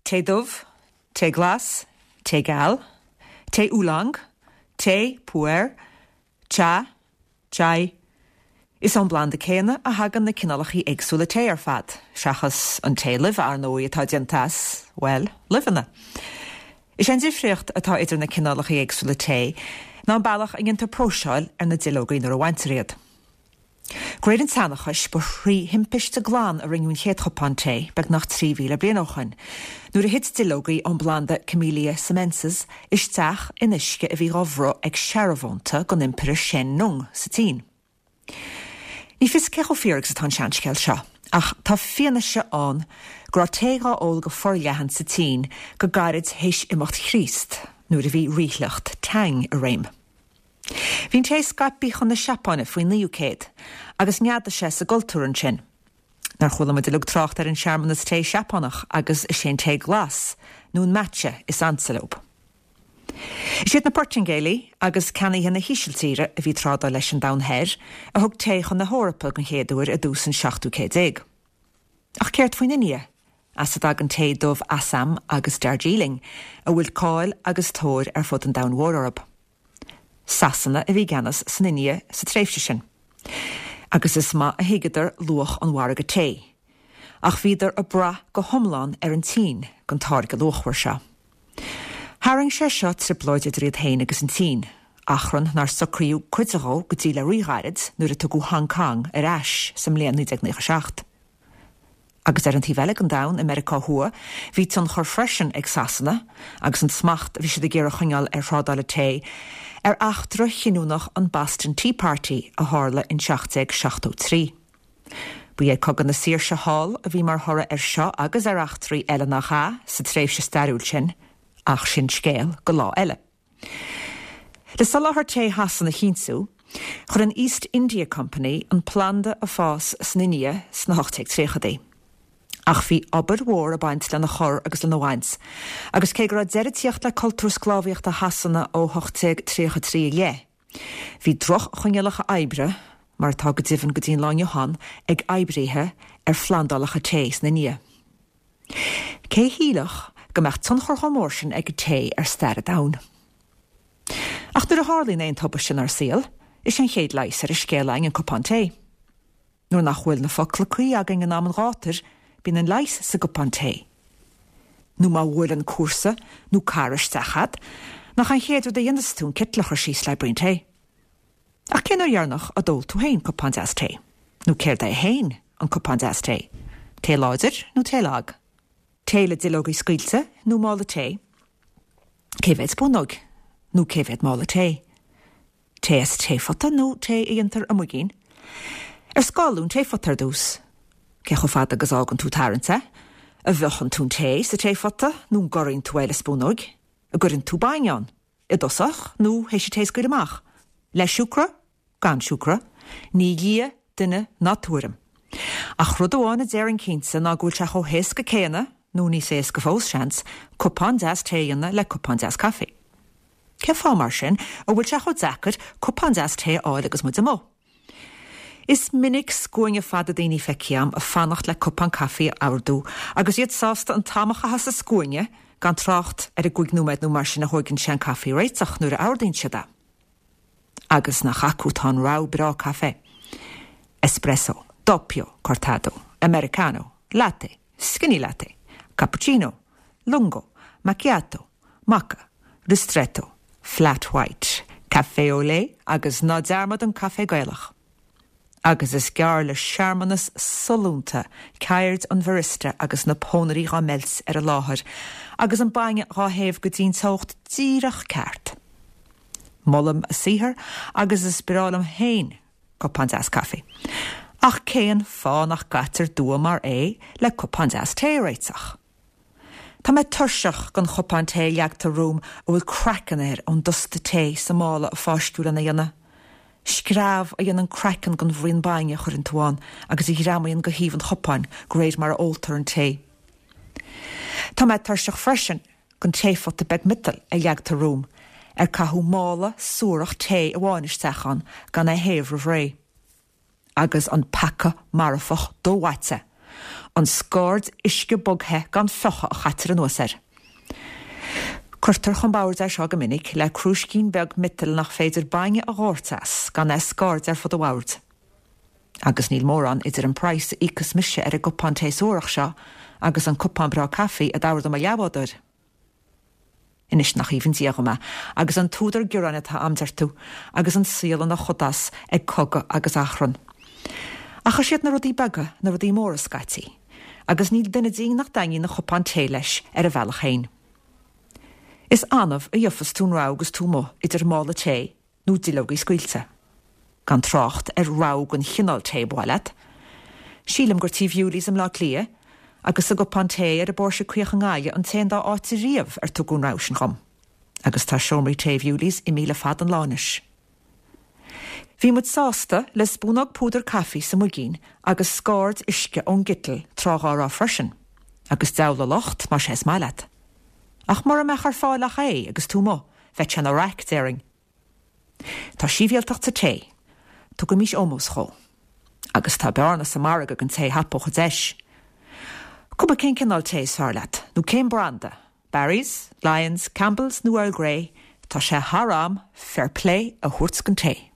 Tae dubh, tae glas, tae geal, tae oolong, tae pu-erh, cha, chai. Is ón bplanda céanna a thagann na cineálacha éagsúla tae ar fad, seachas an tae luibhe, ar ndóigh, atá déanta as, bhuel, luibheanna. Is é an difríocht atá idir na cineálacha éagsúla tae ná an bealach a ndéantar próiseáil ar na duilleogaí nuair a bhaintear iad. De réir an tseanchais, ba thrí thimpiste glan a rinneadh an chéad chupán tae, beagnach 3,000 bliain ó shoin, nuair a thit duilleogaí ón bplanda Camellia sinensis isteach in uisce a bhí dhá bhruth ag searbhónta don Impire Shen Nung sa tSín. Ní fios cé chomh fíor agus atá an seanscéal seo, ach tá fianaise ann go raibh tae dhá ól go forleathan sa tSín go gairid théis imeacht Chríost, nuair a bhí ríshliocht Tang i réim. Bhí an tae scaipthe chun na Seapáine faoin 9ú céad, agus neadaigh sé sa gcultúr ansin. Nár chuala muid uilig trácht ar an searmanas tae Seapánach agus is é an tae glas, nó an matcha, is ansa leo. Is iad na Portaingéalaigh agus ceannaithe na hÍsiltíre a bhí ag trádáil leis an Domhan Thoir a thug tae chun na hEorpa den chéad uair i dtús an 17ú céad. Ach céard faoin India, as a dtagann tae dubh Assam agus Darjeeling, a bhfuil cáil agus tóir ar fud an domhain mhóir orthu? Sasana a bhí i gceannas san India sa tréimhse sin, agus is maith a thuigeadar luach an mhargaidh tae, ach bhíodar ag brath go hiomlán ar an tSín don táirge luachmhar seo. Tharraing sé seo trioblóid idir iad féin agus an tSín, achrann nár socraíodh cuid dhó go dtí le ríghairid nuair a tugadh Hong Kong ar ais sa mbliain 1997. Agus ar an taobh eile den domhan, i Meiriceá Thuaidh, bhí tionchar freisin ag Sasana, agus an smacht a bhí siad ag iarraidh a choinneáil ar thrádáil an tae, ar eachtra chinniúnach an Boston Tea Party a tharla in 1773. Ba é Cogadh na Saoirse thall a bhí mar thoradh air seo agus ar eachtraí eile nach ea, sa tréimhse stairiúil sin, ach sin scéal go lá eile. Le soláthar tae Shasana a chinntiú, chuir an East India Company an planda ag fás san India sna 1830idí. Ach bhí obair mhór ag baint lena chur agus lena bhaint, agus cé go raibh deireadh ag tíocht le cultúr sclábhaíochta Shasana ó 1833 i leith, bhí droch-choinníollacha oibre, mar atá go deimhin go dtí an lá inniu ann, ag oibríthe ar phlandálacha tae san India. Cé a shílfeadh go mbeadh tionchar chomh mór sin ag an tae ar stair an domhain? Ach nuair a tharlaíonn aon tubaiste inár saol, is é an chéad leigheas ar an scéal againn an cupán tae. Nuair nach bhfuil na focla cuí againn in am an ghátair, bíonn an leigheas sa gcupán tae. Nó má bhuaileann cúrsa nó cara isteach a'd, nach an chéad rud a dhéanas tú an citeal a chur síos le braon tae? Ach cén uair dheireanach a d'ól tú féin cupán deas tae? Nó céard é féin an cupán deas tae? Tae láidir nó tae lag? Tae le duilleogaí scaoilte nó mála tae? Cé mhéad spúnóg nó cé mhéad mála tae? Tae as taephota nó tae a dhéantar i muigín? Ar scáladh an taephota ar dtús? Cé chomh fada agus a fhágann tú ag tarraingt é? An bhfiuchann tú an tae sa taephota nó an gcorraíonn tú é le spúnóig? An gcuireann tú bainne ann? I dtosach nó théis an tae a scaoileadh amach? Le siúcra? Gan siúcra? Ní lia duine ná tuairim. Ach rud amháin a déarfainn cinnte ná go bhfuil sé chomh héasca céanna, nó níos éasca fós, seans, cupán deas tae a dhéanamh le cupán deas caife. Cén fáth, mar sin, a bhfuil sé chomh deacair cupán deas tae a fháil agus muid amuigh? Is minic scuaine fada daoine feicthe a'm ag fanacht le cupán caife a ordú agus iad sásta an t-am a chaitheamh sa scuaine, gan trácht ar an gcúig nóiméad nó mar sin a thóigeann sé an caife a réiteach nuair a ordaíonn siad é. Agus nach acu atá an rogha breá caife? Espresso, doppio, cortado, americano, latte, skinny latte, cappuccino, lungo, macchiato, mocha, ristretto, flat white, café au lait agus ná dearmad an caife Gaelach. Agus is gearr le searmanas sollúnta ceird an bharista agus na pónairí dhá meilt ar an láthair agus an bainne dhá théamh go dtí'n teocht díreach ceart. Molaim a saothar agus is breá liom féin cupán deas caife. Ach cén fáth nach gcaitear dua mar é le cupán deas tae a réiteach? Tá mé tuirseach den chupán tae a leagtar romham a bhfuil craiceann air ón dusta tae sa mála a fáisceadh lena dhéanamh. Screamh a dhéanann craiceann den bhraon bainne a chuireann tú ann agus a ghreamaíonn go thaobh an chupáin de réir mar a óltar an tae. Tá mé tuirseach freisin den taephota beag miotail a leagtar romham, ar caitheadh mála suarach tae amháin isteach ann gan é a théamh roimh ré. agus an peaca marfach do-mhaite. An scaird uisce bog-the gan fiuchadh a chaitear anuas air. Cuirtear chun boird é seo go minic le crúiscín beag miotail nach féidir bainne a dhóirteadh as gan é a scairdeadh ar fud an bhoird. Agus níl mórán idir an praghas a íocfas mise ar an gcupán tae suarach seo agus an cupán breá caife a d'ordaigh mo leathbhádóir. Anois nach aoibhinn Dia dhom é, agus an t-údar gearáin atá a'm, deir tú, agus an saol ina chodás ag cogadh agus achrann. Ach is iad na rudaí beaga na rudaí móra scaití, agus níl duine dínn nach dtaitníonn a chupán tae leis ar a bhealach féin. Is annamh a gheofas tú an rogha agus tú amuigh idir mála tae nó duilleogaí scaoilte. Gan trácht ar rogha den chineál tae ba mhaith leat. Sílim gur Tí Bewley's i mBleá Cliath agus sa gCupán Tae ar an bPóirse Caoch i nGaillimh an t-aon dá áit riamh ar tugadh an rogha sin dhom. Agus tá seomraí tae Bewley's imithe le fada an lá anois. Bhí muid sásta le spúnóg púdar caife sa muigín agus scaird uisce ón gciteal tráth dhá raibh freisin. Agus deabhal a locht más é is maith leat. Ach mura mbeadh ar fáil ach é agus tú amuigh, bheadh sé ina raic, déarfainn. Tá sibhialtacht sa tae. Tugaimís ómós dhó. Agus tá bearna sa margadh don té a thapódh an deis. Cuma cén cineál tae is fearr leat, nó cén branda, Barry's, Lyons, Campbell's nó Earl Grey, tá sé thar am fair play a thabhairt don tae.